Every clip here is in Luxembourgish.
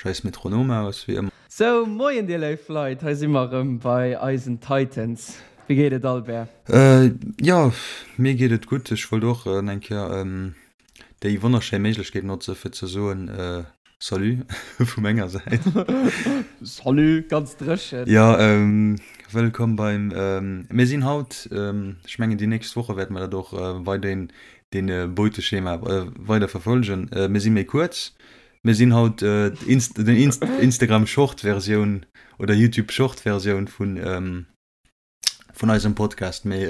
Scheiss Metronom aus, wéi ëmmer. Sou, moien dir léif Leit, hei si mer erëm bei eisen Titans. Wéi geet et Albert? Jo, mir geet et gutt. Ech wollt och eng Kéier déi wonnerschéi Méiglechkeet notze fir ze soen Salut vu menger Säit. Salut, ganz dréchen. Jo, wëllkomm beim, mir sinn haut, ech mengen déi nächst Woche wäerte mer dat och weiderhin dee Beuteschema weider verfolgen. Mir si méi kuerz, Mir sinn haut den Instagram Short Versioun oder YouTube Short Versioun vun vun eisem Podcast, mee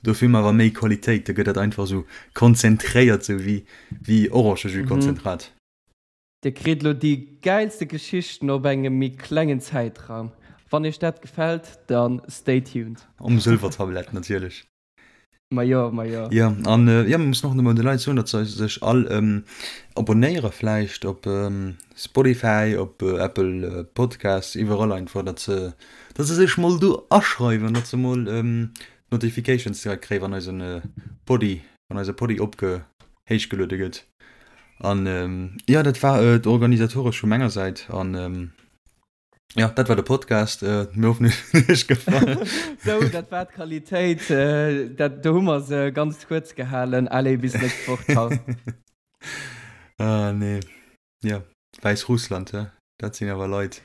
dofir hu mer awer méi Qualitéit, da gëtt dat einfach esou konzentréiert, sou wéi wéi Orangejus-Konzentrat. Dir kritt elo déi gäilste Geschichten op engem méi klengen Zäitraum. Wann iech dat gefält, dann stay tuned. Um Sëlwertablett natierlech. Majo, majo. Jo, an jo, mir mussen och emol de Leit soen, datt se sech all abonéiere vläicht op Spotify, op Apple Podcasts, iwwerall einfach, datt se, datt se sech mol do aschreiwen, datt se mol d'Notifications direkt kréien, wann eisen Poddy, wann eise Poddy opge, héichgeluede gëtt. An jo, dat war et organisatoresch vu menger Säit an. Ja, dat war de Podcast. Äh, mir hoffen, es huet iech gefall. Sou, dat war d'Qualitéit. Äh, dat, do hu mer se ganz kuerz gehalen. Allez, bis nächst Woch. Ciao. Ah, nee. Ja, Wäissrussland, hä? Dat sinn awer Leit.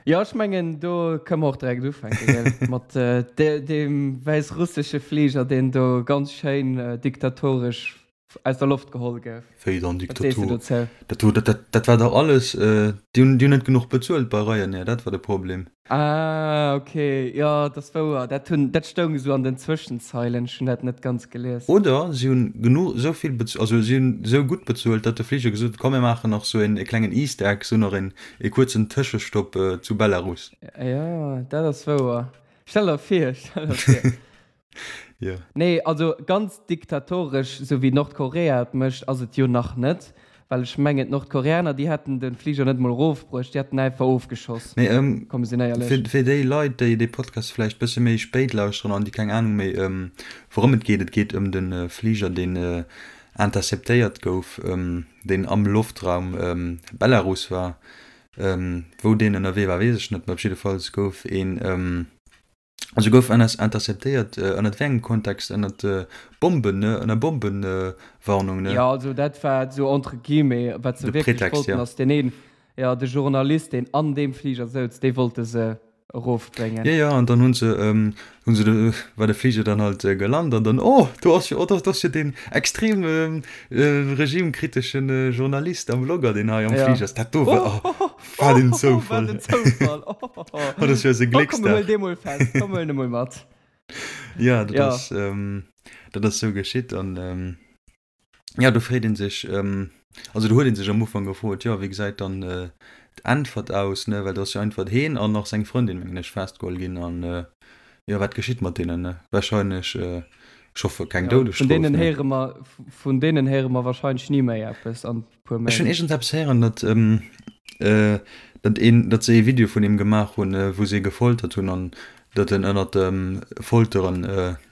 Jo, ech mengen, do kënne mer och direkt ufänken, gell? Mat äh, de, deem wäissrussesche Fliger, deen do ganz schéin äh, diktatoresch aus der Loft geholl gouf. Wéi dann Diktatur? Dat do, dat, dat, dat war dach alles, äh, déi hunn, déi hunn net genuch bezuelt bei Ryanair, dat war de Problem. Ah, okay, jo, dat ass wouer, dat hunn, dat stoung esou an den Zwëschenzeilen, ech hunn dat net ganz gelies. Oder si hunn genuch, esou vill bez-, also si hunn esou gutt bezuelt, datt de Fliger gesot huet, komm mir maachen nach esou een, e klengen Easter Egg, esou nach een, e kuerzen Tëschestopp zu Belarus. Jo, dat ass wouer. Stell der vir, stell der vir. Jo. Nee, also ganz diktatoresch, sou wéi Nordkorea et mécht, ass et jo nach net. Well ech mengen, d'Nordkoreaner, déi hätten de Fliger net mol erofbruecht, déi hätten einfach ofgeschoss. Mee ähm, Komm, mir sinn éierlech. fir, fir déi Leit, déi dee Podcast vläicht bësse méi spéit lauschteren an déi keng Anung méi ëm wourëm et geet, et geet ëm de Fliger, deen interceptéiert gouf, deen am Loftraum Belarus war. Wou deen ënnerwee war, weess ech net, mä op jiddefalls gouf een, Also gouf ënner interceptéiert ënnert wéi engem Kontext? Ënnert Bomben, ne? Ënner Bombenwarnung, ne? Jo, also dat war esou entre guillemets, wat se De wierklech Pretext, wollten ja. ass deen een, jo, de Journalist, deen an deem Fliger souz, dee wollte se erofbréngen. Jo, jo, an dann hu se, hu se de, war de Fliger dann halt gelant an dann, oh, do ass jo, oh, do ass jo deen extrem regimekritesche Journalist a Vlogger, deen hei am Fliger ass. Dat do war, oh. Wat een Zoufall. Wat een Zoufall. Oh, oh, oh. Oh, dat ass jo eise Glécksdag. Oh, komm, mir huelen dee mol fest. Komm, mir huelen e mol mat. Ja, dat ja. ass, ähm, dat ass sou geschitt an ähm, ja, do freet een sech, ähm, also do huet een sech am Ufank gefrot, jo, wéi gesäit dann äh, d'Äntwert aus, ne, well do ass jo einfach heen an nach seng Frëndin, mengen ech, festgeholl ginn an äh, jo, wat geschitt mat deenen, ne? Wahrscheinlech, äh, ech hoffe keng ja, Doudesstrof. Vun deenen héiere mer, vun deenen héiere mer wahrscheinlech ni méi eppes an puer Méint. Ech hunn iergendeppes héieren, datt datt een, datt se ee Video vun him gemaach hunn, wou se e gefoltert hunn an datt en ënnert dem Folteren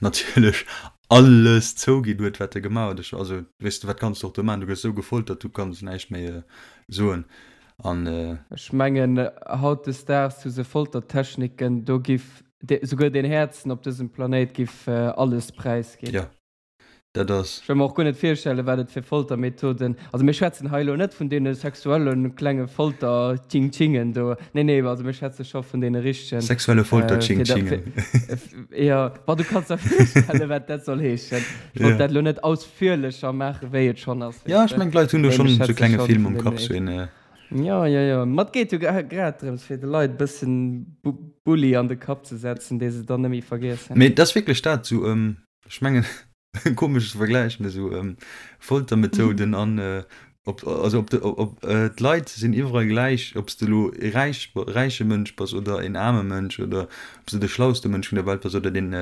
natierlech alles zouginn huet, wat e gemaach huet. Ech, also weess de, wat kanns de och do maachen? Du gëss esou gefoltert, du kanns näischt méi soen an. Ech mengen, hautdesdaags hu se Foltertechniken, do giff souguer den Häerzen op dësem Planéit giff alles präisginn. Jo, Dat ass. Ech wëll mer och guer net virstellen, wat et fir Foltermethoden, also mir schwätzen hei elo net vun deene sexuelle klenge Folter-Tsching-Tschingen do, nee, nee, also mir schwätze scho vun deene richtegen. Sexuelle Folter-Tsching-Tschingen. Jo, bon, du kanns der virstellen, wat dat soll heeschen. Ech wollt dat elo net ausführlecher maachen, wéi et schonn ass, Jo, ech mengen, d'Leit hunn do schonn esou klenge Film am Kapp, sou een. Jo, jo, jo, ma et geet jo grad drëms, fir de Leit e bëssen Bulli an de Kapp ze setzen, dee se dann net méi vergiessen. Mee et ass wierklech dat, sou, Ech mengen, e komesche Vergläich, mee esou Foltermethoden an op, also op de, op d'Leit sinn iwwerall gläich, ob s de elo e räich, räiche Mënsch bass oder en aarme Mënsch oder ob s de de schlauste Mënsch vun der Welt bass oder deen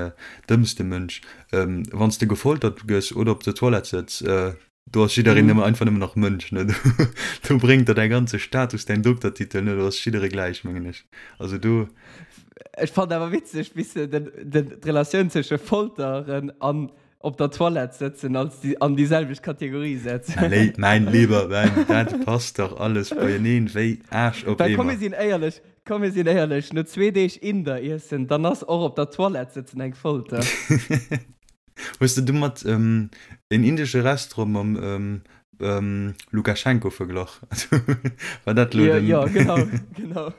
dëmmste Mënsch. Wann s de gefoltert gëss oder op der Toilette sëtz, do ass jiddereen nëmme einfach nëmmen nach Mënsch, ne? Do bréngt der däi ganze Status, däin Doktertitel net, do ass jidderee gläich, mengen ech. Also do. Ech fannen awer witzeg, wéi s de den, den, d'Relatioun zwësche Folteren an. Op der Toilette sëtzen als déi an déi selwecht Kategorie setzen. Mäin Léi, mäin Lieber, mäin, dat passt dach alles beieneen wéi Aarsch op Well komm mir Eemer. sinn éierlech, komm mir sinn éierlech, no zwee Deeg Inder iessen, dann ass och op der Toilette sëtzen eng Folter. Hues de domat en indesche Restaurant mam Lukaschenko verglach? War dat lo den. Jo, genau, genau.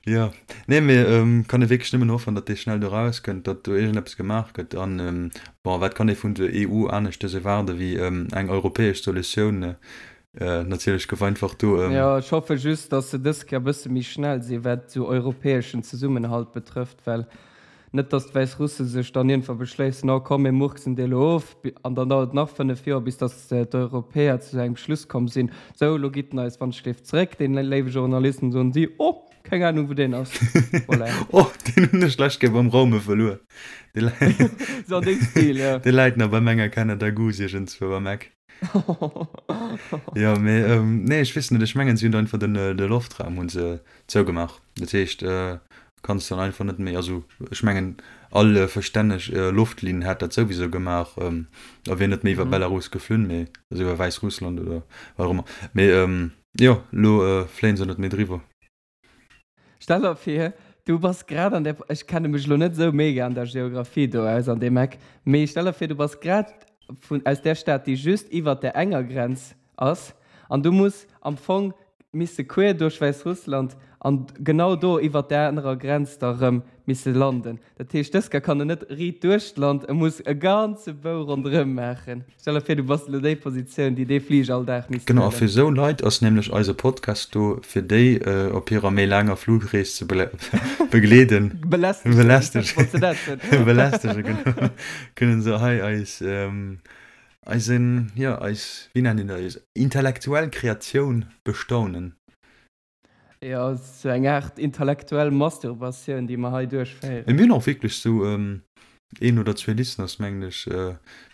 Jo, nee, mee kann ee wierklech nëmmen hoffen, datt dee schnell do rauskënnt, datt do iergendeppes gemaach gëtt. An, bon, wat kann ee vun der EU aneschtes erwaarde wéi eng europäesch Solutioun? Natierlech gouf einfach do. Jo, ech hoffe just, datt se dës Kéier e bësse méi schnell sinn, wat esou europäeschen Zesummenhalt betrëfft, well Net datt d'Wäissrusse sech dann iergendwa beschléissen, oh komm mir murksen dee lo of, an dann dauert et nach 5 Joer bis datt d'Europäer zu engem Schluss komm sinn, sou elo gitt en eis wann-ech-léif zeréck, deen léiwe Journalist, an soen si, oh keng Ahnung wou deen ass. Voilà. Oh deen hunn ech d'lescht Kéier beim Raume verluer. Dee läit, Sou an deem Stil, jo. dee läit nach beim enger Canada Goose iergendzwou am Eck. Jo, mee nee ech weess net, ech mengen si hunn einfach den de Loftraum hu se zougemaach. Dat heescht kanns dann einfach net méi, also ech mengen all verstänneg Loftlinn hätt dat souwisou gemaach a wier net méi iwwer Belarus geflunn, mee also iwwer Wäissrussland oder wat och ëmmer. Mee jo, elo fléien se net méi driwwer. Stell der vir, du bass grad an der, ech kenne mech elo net esou mega an der Geographie do aus an deem Eck, mee stell der vir, du bass grad vun, aus där Stad, déi just iwwert där enger Grenz ass, an du muss am Fong misse queer duerch Wäissrussland an genau do iwwert där anerer Grenz da rëm misse landen. Dat heescht, dës Kéier kann en net riit duerch d'Land, e muss e ganze Bou ronderëm maachen. Stell der vir, du bass elo déi Positioun, déi dee Fliger all Dag misst Genau, a fir huelen. esou Leit ass nämlech eise Podcast do, fir déi op hirer méi laanger Flugrees ze begleeden. Belästegen, Belästegen, wolls de dat soen? Belästegen, genau. Kënnen se hei eis, eisen, jo, eis, wéi nennt een dat, eis intellektuell Kreatioun bestaunen. Jo, sou eng Aart intellektuell Masturbatioun, déi mer hei duerchféieren. Mee mir hunn och wierklech sou een oder zwee Listeners, mengen ech.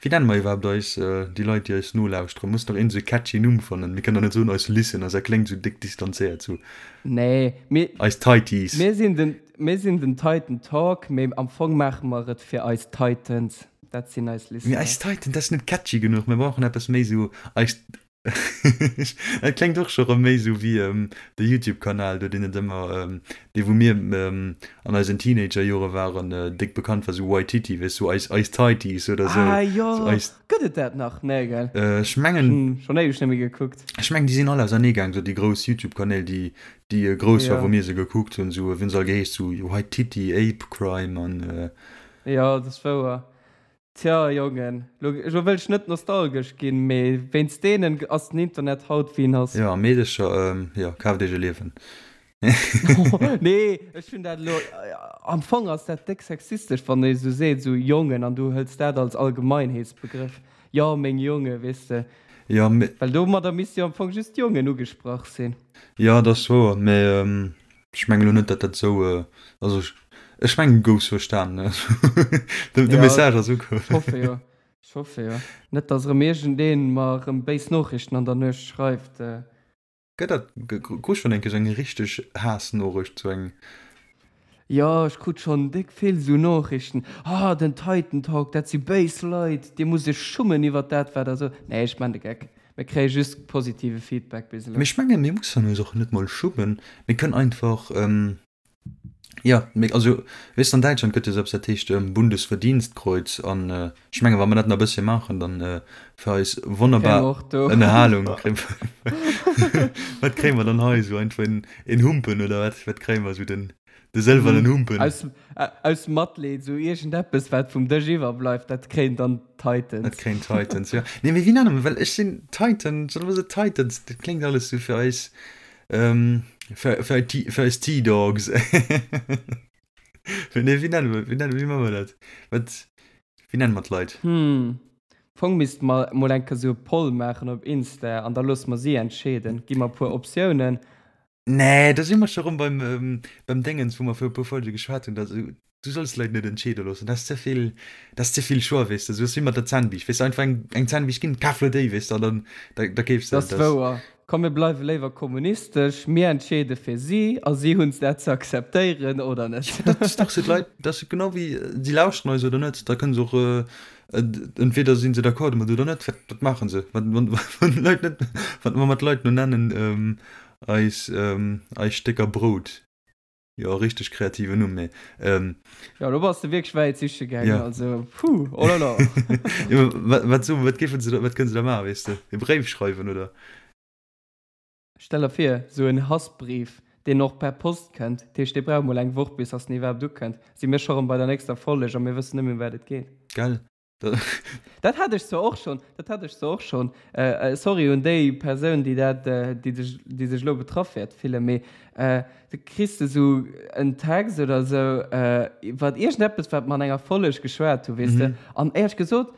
Wéi nenne mer iwwerhaapt eis, déi Leit, déi eis nolauschteren? Muss nach een sou e catchy Numm fannen. Mir kënnen der net soen eis Listeners, dat kléngt sou déck distanzéiert, sou Nee, mir, eis Tighties. mir sinn den, mir sinn den Titan Talk, mee am Fong maache mer et fir eis Titans. Dat sinn eis Mee Listeners. eis Titans, dat ass net catchy genuch. Mir brauchen eppes méi sou eis. Dat kléngt och scho rëm méi sou wéi de Youtube-Kanal do, deen et ëmmer, dee wou mir an eisen Teenager-Jore waren, déck bekannt war, sou Waititi, weess sou eis, eis Tighties oder sou. Ah jo, eis. Gëtt et dat nach? Nee, gell? Ech mengen. Hunn schonn éiweg net méi gekuckt. Ech mengen, déi sinn all auserneegaang, sou déi grouss Youtube-Kanäl, déi, déi grouss war, wou mir se gekuckt hunn, sou, wéi hunn se all geheescht, sou Waititi, Ape Crime an. Jo, dat ass wouer. Tja, Jongen, lo wëll ech net nostalgesch ginn, mee wéinst deenen ass den Internet haut wéi en ass. Jo, a Meedecher, jo, kaaft iech e Liewen. Nee, ech hunn dat elo, am Fong ass dat déck sexistesch, wann ee sou seet, sou Jongen, an du hëls dat als Allgemeinheetsbegrëff, jo, meng Jonge, weess de. Jo, mee. Well domadder misste jo am Fong just d'Jongen ugesprach sinn. Jo, dat ass wouer, mee Ech mengen elo net, datt dat esou, also ech, ech mengen du goufs verstanen. De, de Message ass ukomm. Ech hoffe jo, ech hoffe jo. Net, datt erëm iergendeen mer erëm béis Noochrichten an der Nuecht schreift. Gëtt dat, krus schonn eng Kéier sou eng richteg Haassnoorecht, sou eng. Jo, ech krut schonn déck vill sou Noochrichten, Ah, den Titan Talk, dat si béis Leit, dir musst iech schummen iwwert dat, wat der sot. Nee, ech man de Geck. Mir kréie just positive Feedback bis elo. Mee ech mengen, mir mussen eis och net mol schummen. Mir kënnen einfach, jo, mir, also, weess de, an Däitschland gëtt jo esou eppes, dat heescht Bundesverdienstkreuz. An ech mengen, wa mer dat nach e bëssche maachen, dann fir eis wonnerbar Ënnerhalung kréie mer, wat kréie mer dann hei esou einfach en Humpen oder wat, wat kréie mer esou den, De sëlwernen Humpen. Aus, aus Matleed, esou iergendeppes, wat vum Dësch iwwerbleift, dat kréien dann d'Titans. Dat kréien d'Titans, jo. Nee, mee wéi nenne mer, well ech sinn Titan, solle mer se Titans, dat kléngt alles esou fir eis, fir, fir, fir eis T-Dogs. Nee, wéi nenne mer, wéi nenne, wéi maache mer dat? Wat, wéi nenne mer d'Leit? Hm, Fong misste mer mol eng Kéier esou e Poll maachen op Insta an da loosse mer si entscheeden. Gi mer e puer Optiounen Nee, do si mer scho rëm beim, beim Déngens, wou mer viru puer Folge geschwat hunn, dass du solls d'Leit net entscheede loossen, dat ass ze vill, dat ass ze vill Choix, weess de. Sou ass wéi mat der Zännbiischt, weess de, einfach eng, eng Zännbiischt ginn, kaf lo déi, weess de, an dann, da, da keefs de Dat ass wouer. Komm mir bleiwe léiwer kommunistesch, mir entscheede fir si a si hunn dat ze akzeptéieren oder net. Dat ass dach sou, d'Leit, dat ass genau wéi, si lauschteren eis oder net, da kënne se och, entweder si se d'accord domat oder net. Wat, wat maache se, wann, wann, wann d'Leit net, wat mer d'Leit no nennen, eis, eis Stécker Brout. Jo, richteg kreativen Numm, mee. Ähm, ja, do bass de wierklech wäit siche gaangen, ja. Also, puh, oh la la. ja, wat, wat, so, wat, géifen se da, wat kënnen se da maachen, weess de? E Bréif schreiwen, oder? Stell der vir, sou en Hassbrief, deen och per Post kënnt. Dat heescht, dee brauch mol eng Woch, bis dass en iwwerhaapt ukënnt. Si mir scho rëm bei der nächster Folleg a mir wëssen net méi, ëm wat et geet. Gell? Dat hat ech zwar och schonn, dat hat ech zwar och schonn. Sorry un déi Persoun, déi dat, déi sech, déi sech elo betraff wäert fillen, mee du kriss de sou en Text oder esou iwwer iergendeppes, wat mer an enger Folleg geschwat hu, weess de. An éierlech gesot,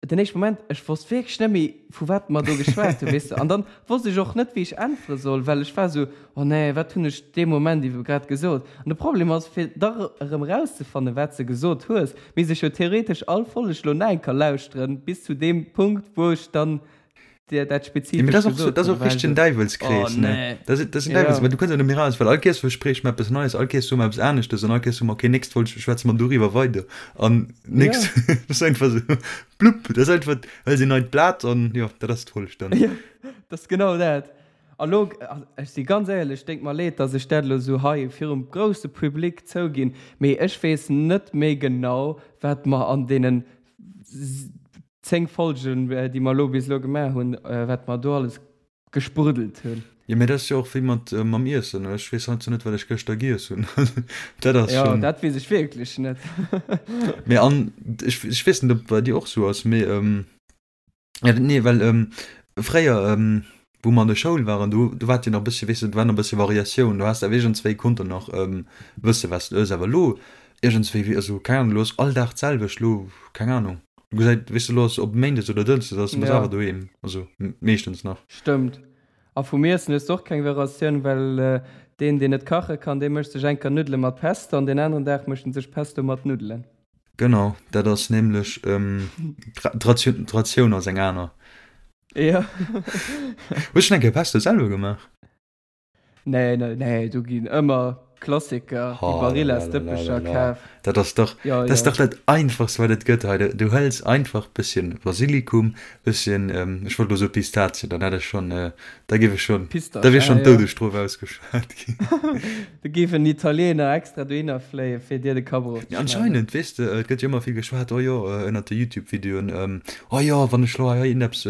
den éischte Moment, ech wosst wierklech net méi, vu wat mer do geschwat hunn, weess de. An dann wosst ech och net, wéi ech äntwere soll, well ech war esou, Oh nee, wat hunn ech dee Moment iwwe grad gesot? An de Problem ass, fir da erëm erauszefannen, wat s de gesot hues, misst ech jo theoretesch all Folleg lo nach eng Kéier lauschteren, bis zu deem Punkt, wou ech dann dir dat Ja, mee spezifesch dat ass och, gesot dat ass hunn. och War richteg en esou, Oh Däiwelskrees, ne? nee. Dat ass, dat ass en Ja. Däiwels, well du kënns jo net méi raus, well all Kéiers verspriech mer eppes Neies, all Kéiers soe mer eppes aneschtes an all Kéiers soe mer, okay, nächst Folg schwätze mer doriwwer weider an nächst, Ja. dat ass einfach esou, blupp, dat ass einfach, hëls een neit Blat an jo, dat ass d'Folg dann. Ja, dat ass genau dat. A lo, ech si ganz éierlech, déngt mer leed, dass ech dat elo esou hei virum grousse Public zouginn, mee ech weess net méi genau, wat mer an deenen 10 Folgen, déi mer elo bis elo gemaach hunn, wat mer do alles gespruddelt hunn. Jo, mee dat ass jo och wéi mat mam Iessen. Ech weess heiansdo net, wat ech gëschter giess hunn. Dat ass Jo, schonn. dat weess ech wierklech net. Mee an ech, ech weess net, ob et bei dir och esou ass, mee ja, nee, well fréier, wou mer an der Schoul waren, do, do war et jo nach e bëssche, weess de, do war nach e bëssche Variatioun. Do has de awer iergendswéi konnte nach wësse, wat s de ëss. Awer elo iergendswéi, wéi, also keng Ahnung, elo ass all Dag d'selwecht, elo, keng Ahnung. Du gesäit, weess de, elo ass op Méindes oder Dënschdes ass, du bass Ja. awer doheem, also meeschtens nach. Stëmmt. A vum Iessen hues de och keng Variatioun, well deen, deen net kache kann, dee mécht sech eng Kéier Nuddele mat Pesto an deen aneren Dag mécht en sech Pesto mat Nuddelen. Genau, dat ass nämlech d'Ratioun ass eng aner. Jo. Hues schonn eng Kéier Pesto selwer gemaach? Nee, nee, nee, do ginn ëmmer Klassiker, déi Barilla-Stëppecher kaf. Dat ass dach, dat ass dach dat einfachst wat et gëtt hei. Du hëls einfach bësschen Basilikum, bësschen, ech wollt elo soe Pistazien, dann hätt ech schonn, da géif ech schonn, da wier schonn d'Doudesstrof ausgeschwat ginn. Do géif en Italiener extra dohinner fléien, fir dir de Kapp erofzeschneiden. Anscheinend, weess de, et gëtt jo ëmmer vill geschwat, oh jo, ënnert de Youtube-Videoen, oh jo, wann ech lo hei iergendeppes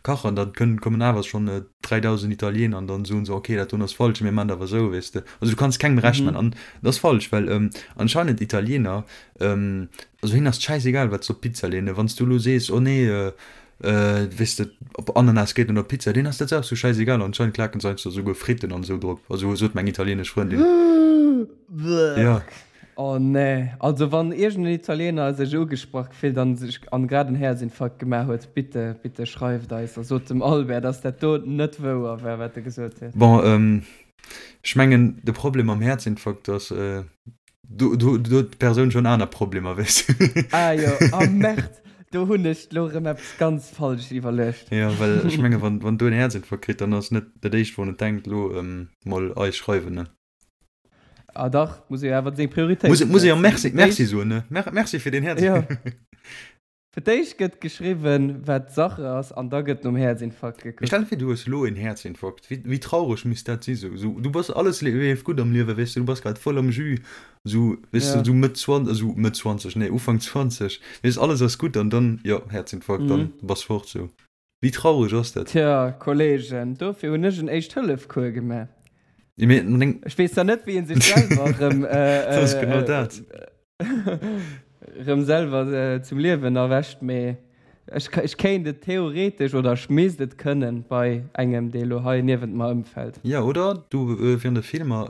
kachen, da kënnen, kommen awer schonn 3.000 Italiener an dann soen se, okay, dat doen ass falsch, mir man dat awer esou, weess de. Also du kanns kengem Recht man an dat ass falsch, well anscheinend Italiener, also hinnen ass et schäisegal, wat se op d'Pizza leeën. Wann s du elo sees, oh nee, weess de, op Ananas geet net op d'Pizza, deenen ass dat och sou schäisegal. Anscheinend klaken se heiansdo esouguer Fritten an esou drop, also sot meng italienesch Frëndin. Jo. Oh nee, also wann iergend en Italiener sech ugesprach gefillt an sech an grad en Häerzinfarkt gemaach huet, bitte, bitte schreift eis a sot dem Albert, dass dat do net wouer war, wat e gesot huet. Bon, ech mengen de Problem mam Häerzinfarkt ass, do do huet d'Persoun schonn aner Problemer, weess de. Ah jo, ah merde, do hunn ech lo erëm eppes ganz falsch iwwerluecht. Jo, well ech menge wann wann do en Häerzinfarkt kritt, dann ass net dat éischt wourun et denkt, elo mol eis schreiwen, ne. Ah dach, muss ee jo awer seng Prioritéite Muss, muss ee jo Merci, Merci soen, ne? Merci fir den Häerz. Ja. Fir d'éischt gëtt geschriwwen, wat Sache ass, an da gëtt nom Häerzinfarkt gekuckt. Mee stell dir vir, du hues elo en Häerzinfarkt. Wéi, wéi traureg misst dat si sou? Sou, du bass, alles leeft gutt am Liewen, weess de, du bass grad voll am Jus, sou, weess de, sou Mëtt 20, sou Mëtt 20, nee, Ufank 20, weess, alles ass gutt an dann, jo, Häerzinfarkt, dann bass fort, sou. Wéi traureg ass dat? Tja, Kollegen, dofir hunn ech en Éischt-Hëllef-Cours gemaach. Ech weess zwar net, wéi ee sech selwer erëm, Dat ass genau dat. erëm selwer zum Liewen erwächt, mee ech, ech kéint et theoretesch oder ech misst et kënnen bei engem, dee elo hei niewent mer ëmfält. Jo, oder du, während de Filmer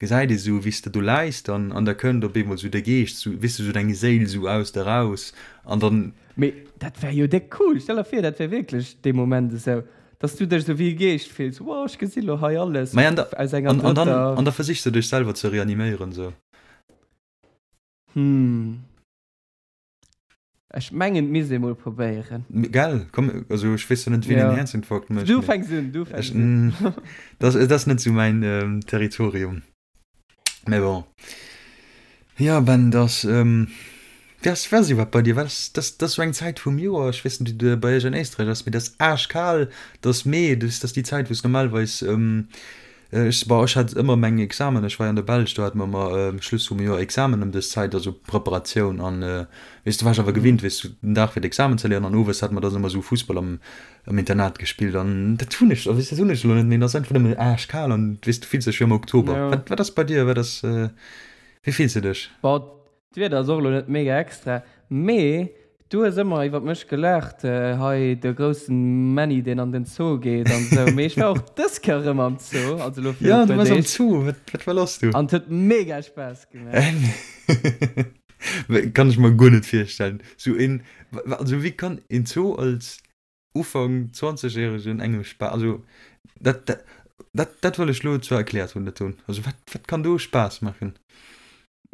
gesäit ee sou, wéi s de do läis dann, an da kënnt op eemol sou de Geescht, sou, weess de, sou deng Séil sou aus der raus, an dann. Mee dat wär jo déck cool! Stell der vir, dat wär wierklech dee Moment esou, dass du dech esou wéi e Geescht fills, Wow, ech gesi lo hei alles Maja, an da, aus enger an, an dann, drëtter. an da versichs de dech selwer ze reaniméieren, sou. Hm. Ech mengen et misst ee mol probéieren. Gell, komm, also ech weess jo net wien en Häerzinfarkt mécht. Du fänks un, du fänks un. Dat ass net sou mäin Territorium. Mä bon. Jo Ben, dat ass, wéi ass, wéi ass iwwerhaapt bei dir? Wat ass, dat ass sou eng Zäit vum Joer, ech weess net wéi et bei iech an Éisträich ass, mee dat ass aaschkal, dat ass Mee, dat ass déi Zäit wou s normalerweis Ech, bon, ech hat ëmmer meng Examen, ech war jo an der Belsch, do hate mer ëmmer Schluss vum Joer Examen ëm dës Zäit, also Preparatioun an, weess du, war ech awer gewinnt, weess du, den Dag fir d'Examen ze léieren an owes hate mer dann ëmmer esou Fussball am, am Internat gespillt an dat hunn ech, weess du, dat hunn ech elo net méi, et ass einfach nëmmen aaschkal an, weess du, fills dech wéi am Oktober. Wat, wat ass bei dir, wat ass, wéi fills du dech? Bon, D'Wieder ass och elo net mega extra, mee du hues ëmmer iwwert mech gelaacht, hei de groussen Männi deen an den Zoo geet an esou, mee ech war och dës Kéier erëm am Zoo, also elo virun e puer Deeg. Jo, du waars am Zoo, wat, wat war lass do? An et huet mega Spaass gemaach. Kann ech mer guer net virstellen, sou een, also wéi kann een Zoo als Ufank Zwanzegjäregen engem Spaass, also dat, dat, dat, dat wëll ech lo zwar erkläert hunn, dat hunn. Also wat, wat kann do Spaass maachen?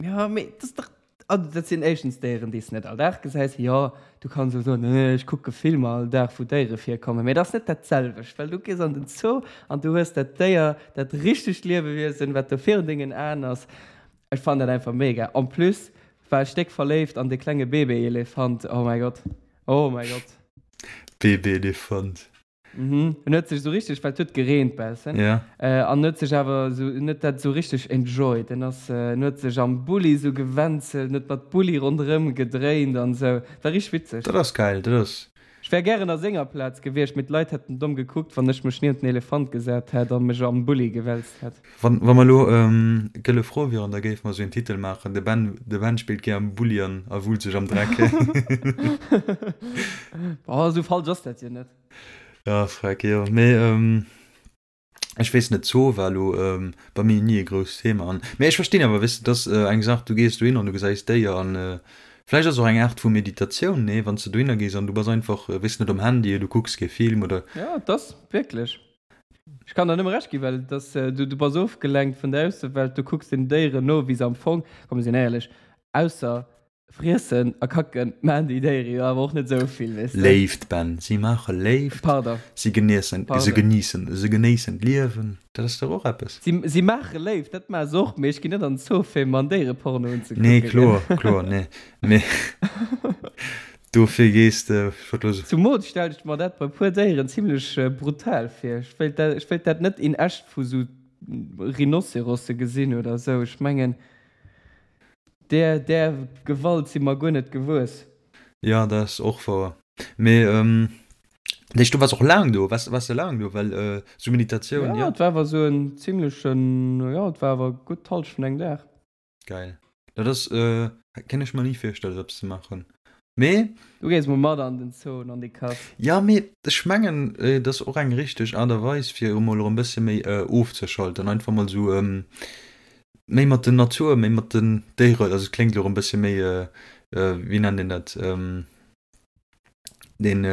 Ja, mee dat ass dach, also dat sinn éischtens Déieren, déi s de net all Dag gesäis. Jo, du kanns elo soen, eh, ech kucke Filmer all Dag, wou Déiere virkommen, mee dat ass net dat selwecht, well du gees an den Zoo an du hues dat Déier, dat richtegt Liewewiesen, wat do virun dengen Aen ass. Ech fannen dat einfach mega. En plus war ech déck verléift an de klenge Baby-Elefant, oh mäi Gott. Oh mäi Gott. Babyelefant. Mhm. En huet sech esou richteg, well et huet gereent bessen. Ja. Äh, an huet sech awer esou, en huet dat esou richteg enjoyed. En ass, en huet sech am Bulli esou gewänzelt, en huet mat Bulli ronderëm gedréint an esou. War richteg witzeg. Dat ass geil, dat ass. Ech wär gären a senger Plaz gewiescht, mee d'Leit hätten domm gekuckt, wann ech mech niewent den Elefant gesat hätt a mech am Bulli gewälzt hätt. Wann wa mer elo Gëlle Fro wieren, da géife mer esou een Titel maachen, De Ben, de Ben spillt gär am Bulli an a wullt sech am Dreck. Boah, esou falsch ass dat jo net. Ja, freck, jo. Mee ech weess net, Zoo war elo bei mir ni e grousst Thema an, mee ech verstinn awer, weess de, dat ass eng Saach, du gees dohin an du gesäis Déier an vläicht ass och eng Aart vu Meditatioun, nee, wann s de dohinner gees an du bass einfach, weess net, um Handy, du kucks kee Film oder. Jo, et ass wierklech. Ech kann der nëmme Recht ginn, well et ass, du, du bass ofgelenkt vun der Aussewelt, du kucks den Déieren no, wéi se am Fong, komm mir sinn éierlech, ausser friessen a kacken, maachen déi Déiere jo awer och net esou vill, weess de. Léift, Ben, si maache Léift, Pardon. si geniessen, se Pardon. geniessen, se genéissen d'Liewen, dat ass dach och eppes. Si, si maache Léift, dat maache se och, mee ech ginn net an den Zoo fir mer en Déiereporno unzekucken, Nee, kloer, kloer, nee, mee Dofir gees de, ech wollt elo so. Zumools stellen ech mer dat bei puer Déieren zimlech brutal vir. Ech wéilt dat, ech wéilt dat net in echt vu sou Rhinocerosse gesinn oder sou. Ech mengen där, där Gewalt si mer guer net gewuess. Jo, dat ass och wouer. Mee dat heescht, du waars och laang do? Waars, waars de laang do? Well sou Meditatioun, Jo, jo. Et war awer sou en zimlechen, jo, et war awer gutt d'Hallschent vun engem Dag. Geil. Dat ass, kéint ech mer ni virstellen esou eppes ze maachen. Mee. Du gees mol mat an den Zoo an an déi Kass. Jo, mee ech mengen et ass och eng richteg Aart a Weis fir emol erëm bësse méi ofzeschalten, einfach mol esou méi mat der Natur, méi mat den Déieren, also et kléngt elo erëm bësse méi, wéi nennt een dat, deen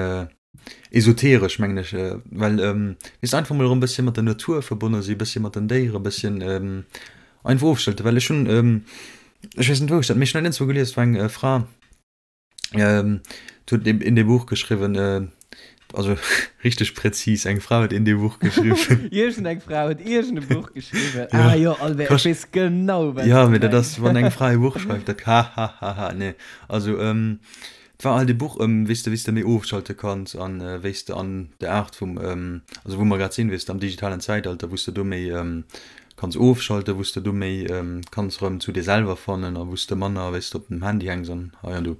esoteresch mengen ech, well weess de einfach mol erëm bësschen mat der Natur verbonne si, bësschen mat den Déiere bësschen einfach ofschalten, well ech hunn ech weess net wou ech dat, mee ech hunn dat iergendzwou gelies, et war eng Fra déi huet in dem Buch geschriwwen, also richteg präzis, eng Fra huet in dem Buch geschriwwen. Iergend eng Fra huet iergend e Buch geschriwwen, ah jo Albert, ech weess genau wat s du mengs. Jo, mee dat ass wann eng Fra e Buch schreift, dat hahahaha, nee also. Et war halt e Buch ëm wéi s de wéi s de méi ofschalte kanns an wéi s de an der Aart vum, also wou mer grad sinn, wéi s de am digitalen Zäitalter, wou s de do méi kanns ofschalten, wou s de do méi kanns erëm zu dir selwer fannen a wou s de manner wéi s de op dem Handy hänks an hei an do.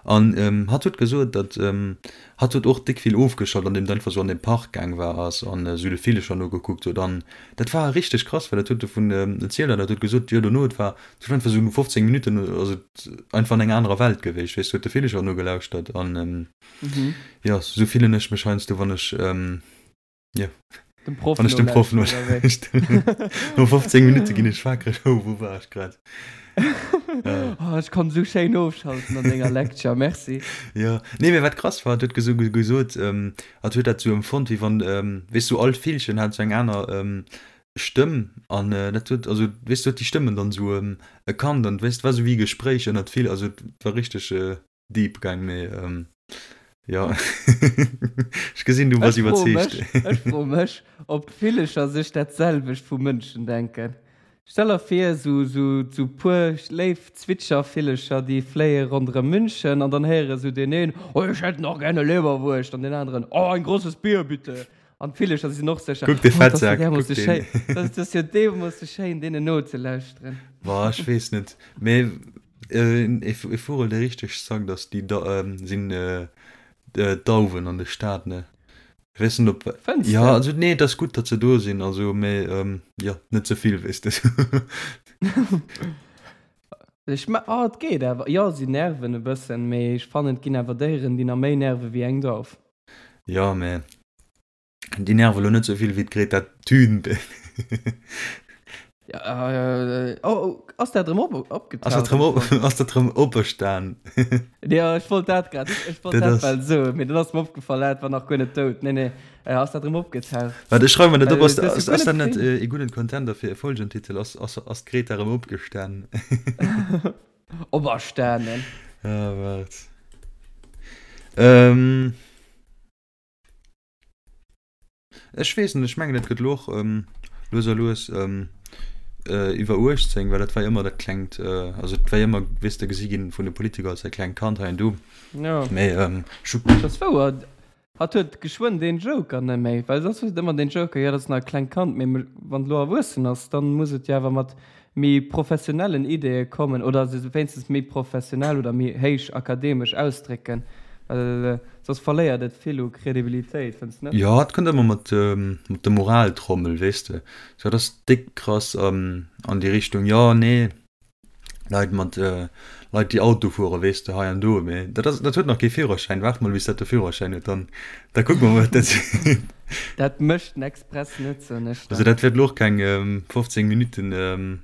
An hatt huet gesot, datt hatt huet och déck vill ofgeschalt an deem et einfach sou an de Park gaang war ass an esou de Villecher nogekuckt huet an dat war richteg krass, well dat huet dovun erzielt an dat huet gesot, jo dono et war Et huet einfach sou no 15 Minutten ass et einfach an enger anerer Welt gewiescht, weess du, huet de Villecher nogelauschtert an jo, sou fillen ech mech heiansdo wann ech jo, Dem Proff wann ech dem Proff nolauschteren. No 15 Minutte ginn ech wakereg, oh wou war ech grad? Oh, ech konnt sou schéin ofschalten an denger Lecture, merci. Jo, nee mee wat krass war, et huet gesou gesot, hatt huet dat sou empfonnt wéi wann, weess du, all Villchen hat sou eng aner Stëmm an dat huet, also weess du, huet déi Stëmmen dann esou erkannt an weess, et war esou wéi e Gespréich ënnert vill, also et war richteg. Deep gaang, mee jo, ech gesinn, du bass Ech froe mech, iwwerzeegt. ech froe mech, ob d'Villecher sech dat selwecht vu Mënschen denken. Stell der vir, sou, sou, sou puer léif Zwitschervillecher, déi fléie ronderëm München an dann héiere sou deen een, Oh, ich hätt nach gerne Leberwurscht an deen aneren, Oh, ein großes Bier, bitte. An d'Villecher sinn och sécher, Kuck de Oh, dat ass jo Fettsak, kuck därmoosse deen. schéin, dat ass jo deemoosse schéin, deenen nozelauschteren. Boah, ech weess net, mee Ee Vugel dee richteg zackt ass déi sinn d'Dauwen an de Stad ne. Ech weess net op Fënns jo de? also nee et ass gutt datt se do sinn also mee jo net ze vill weess de. Ech me oh et geet awer jo si nerven e bëssen mee ech fannen et ginn awer Déieren déi nach méi nerve wéi eng Dauf. Jo mee Déi nerve lo net sou vill wéi d'Greta Thunberg. Ja, äh, oh, oh, ass dat erëm op, opgetaucht? Ass dat erëm op, ass dat erëm operstan? Ja, ech wollt dat grad, ech wollt dat, dat well soen, mee dann ass mir opgefall, dat war nach guer net dout. Nee, nee, äh, ass dat erëm opgetaucht? Wat, ech schreiwe mer dat op, ass, ass, ass dat net e gudden Contender fir e Folgentitel? Ass, ass, ass d'Greta erëm opgestan? Operstanen. Ah, waart. Ähm. Ech weess net, ech mengen et gëtt elo och lues a lues iwwer 18, well dat war jo ëmmer dat klengt, also et war jo ëmmer, weess de, gesi ginn vun de Politiker als dat klengt Kand hei an do. Jo. Mee ech hu. Dat ass wouer. Hatt huet geschwënn deen Joker net méi, well soss huet et ëmmer deen Joker, jo dat ass nach e klengt Kand, mee wann et elo erwuessen ass, dann muss et jo awer mat méi professionellen Ideeë kommen oder se wéinstens méi professionell oder méi héich akademesch ausdrécken, well soss verléiert et vill u Credibilitéit, fënns de net? Jo, et kënnt ëmmer mat mat der Moraltrommel, weess de. Sou, dat ass déck krass an déi Richtung, jo, nee, Leit mat Leit, déi Auto fueren, weess de, hei an do, mee dat ass, dat huet nach kee Führerschäin. Waart mol, bis dat de Führerschäin huet, dann da kucke mer, wat dat seet. Dat mécht den Express net, soen ech Also der. dat wäert elo och keng 15 Minutten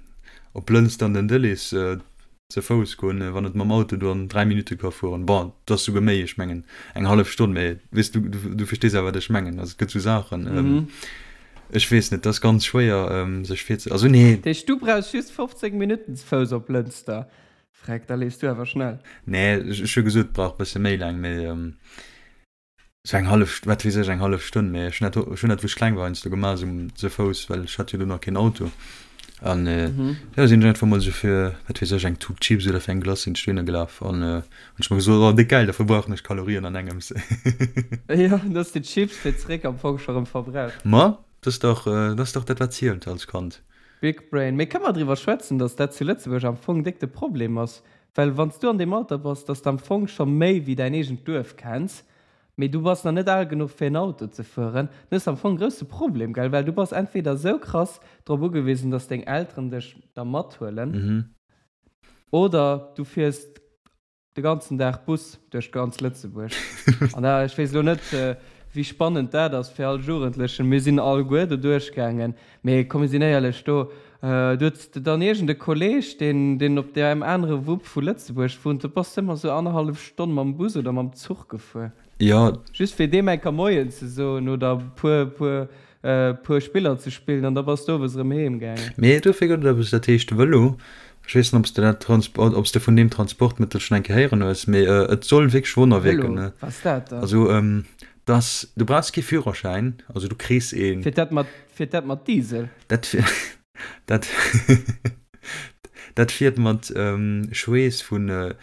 op Lënster an den Dëllis ze Fouss goen, wann et mam Auto do an 3 Minutte ka fueren. Bon, et ass souguer méi, ech mengen eng hallef Stonn, mee weess du, du verstees awer wat ech mengen. Also et gëtt sou Saachen, ech weess net, et ass ganz schwéier sech virze, also nee. Dat heescht, du brauchs just 15 Minutten ze Fouss op Lënster? Freck, da leefs du awer schnell. Nee, ech hu gesot, et brauch e bësse méi laang, mee Sou eng hallef, wat weess ech, eng hallef Stonn, mee ech hunn dat, ech hunn dat wou ech kleng war heiansdo gemaach, sou ze Fouss, well ech hat jo do nach keen Auto. An jo, sinn ech einfach mol sou fir, wat weess ech, eng Tut Chips oder fir eng Glace sinn ech dohinner gelaf an hunn ech mer gesot, oh déck gäil, da verbrauchen ech Kalorien an engems. Jo, dann hues de d'Chips fir zeréck am Fong scho rëm verbraucht. Ma, dat ass dach, dat ass dach dat wat zielt als Kand. Big Brain. Mee kënne mer driwwer schwätzen, datt dat zu Lëtzebuerg am Fong déck de Problem ass? Well wann s du an deem Alter bass, datt s de am Fong scho méi wéi däin eegent Duerf kenns, mee du bass nach net al genuch fir en Auto ze fueren, dann hues de am Fong e grousse Problem, gell? Well du bass entweder esou krass drop ugewisen, datt deng Elteren dech da mathuelen, oder du fiers de ganzen Dag Bus duerch ganz Lëtzebuerg. An da, ech weess elo net, wéi spannend dat ass fir all Jugendlechen. Mir sinn alleguer do duerchgaangen. Mee komm, mir sinn éierlech, do du hues de dann iergend e Kolleg, deen, deen op deem anere Wupp vu Lëtzebuerg wunnt, do bass de ëmmer esou annerhallef Stonn mam Bus oder mam Zuch gefuer. Jo. Just fir deem eng Kéier Moien ze soen oder puer, puer, puer Spiller ze spillen an da bass de owes erëm heem gaangen. Mee dofir gëtt et eppes, dat heescht Vëlo. Ech weess net, ob s de dat Transport, ob s de vun deem Transportmëttel schonn eng Kéier héieren hues, mee et soll wierklech Wonner wierken. Vëlo, wat ass dat dann? Also, dass, du brauchs kee Führerschäin, also du kriss een. Fiert dat mat, fiert dat mat Diesel? Dat, dat, dat fiert mat Schweess vun,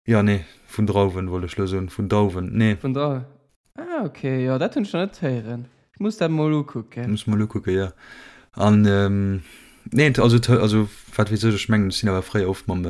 jo, nee, vun Drauwen, wollt ech elo soen, vun Dauwen, nee. Vun Drauwen. Ah ok, jo dat hunn ech nach net héieren. Ech muss dat mol ukucken. Muss mol ukucken, jo. An nee, also also wat weess ech, ech mengen ech sinn awer fréier oft mam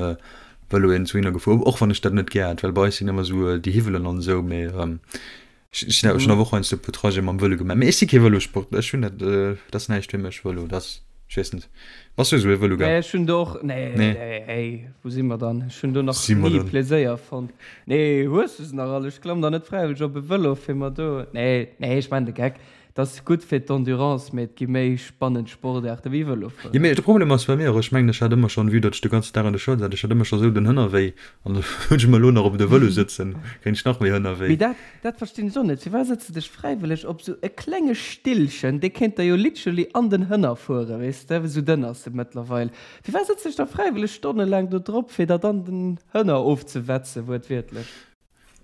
Vëlo iergendwouhinner gefuer, och wann ech dat net gär hat, well bei eis sinn ëmmer esou déi Hiwwelen an esou, mee ech sinn awer, ech hunn awer och heiansdo e puer Trajete mam Vëlo gemaach. Mee ech si kee Vëlosportler, ech hunn dat, dat ass näischt fir mech, Vëlo, dat ass. Ech weess net. Bass du esou ee Vëloger? Nee, ech hunn do och, nee, Nee. nee, hey, wou si mer dann? Ech hunn do nach Si mer ni dann? Pleséier fonnt. Nee, hues du se nach all? Ech klamm da net fräiwëlleg op e Vëlo, fir mer do, nee, nee, ech maachen de Geck. Et ass gutt fir d'Endurance, mee et gi méi spannend Sportaarte wéi Vëlo Jo, fueren. mee de Problem ass bei mir och, ech mengen, ech hat ëmmer schonn, vue datt ech de ganzen Dag an der Schoul sat, ech hat ëmmer scho sou den Hënnerwéi an da hunn ech mer elo nach op de Vëlo sëtzen, kréien ech nach méi Hënnerwéi. Mee dat, dat verstinn ech och net. Firwat sëtz de dech fräiwëlleg op sou e klenge Stillchen, dee kéint der jo literally an den Hënner fueren, weess de, sou dënn ass e mëttlerweil. Firwat sëtz dech da fräiwëlleg stonnelaang do drop, fir der dann den Hënner ofzewetzen, wuertwiertlech?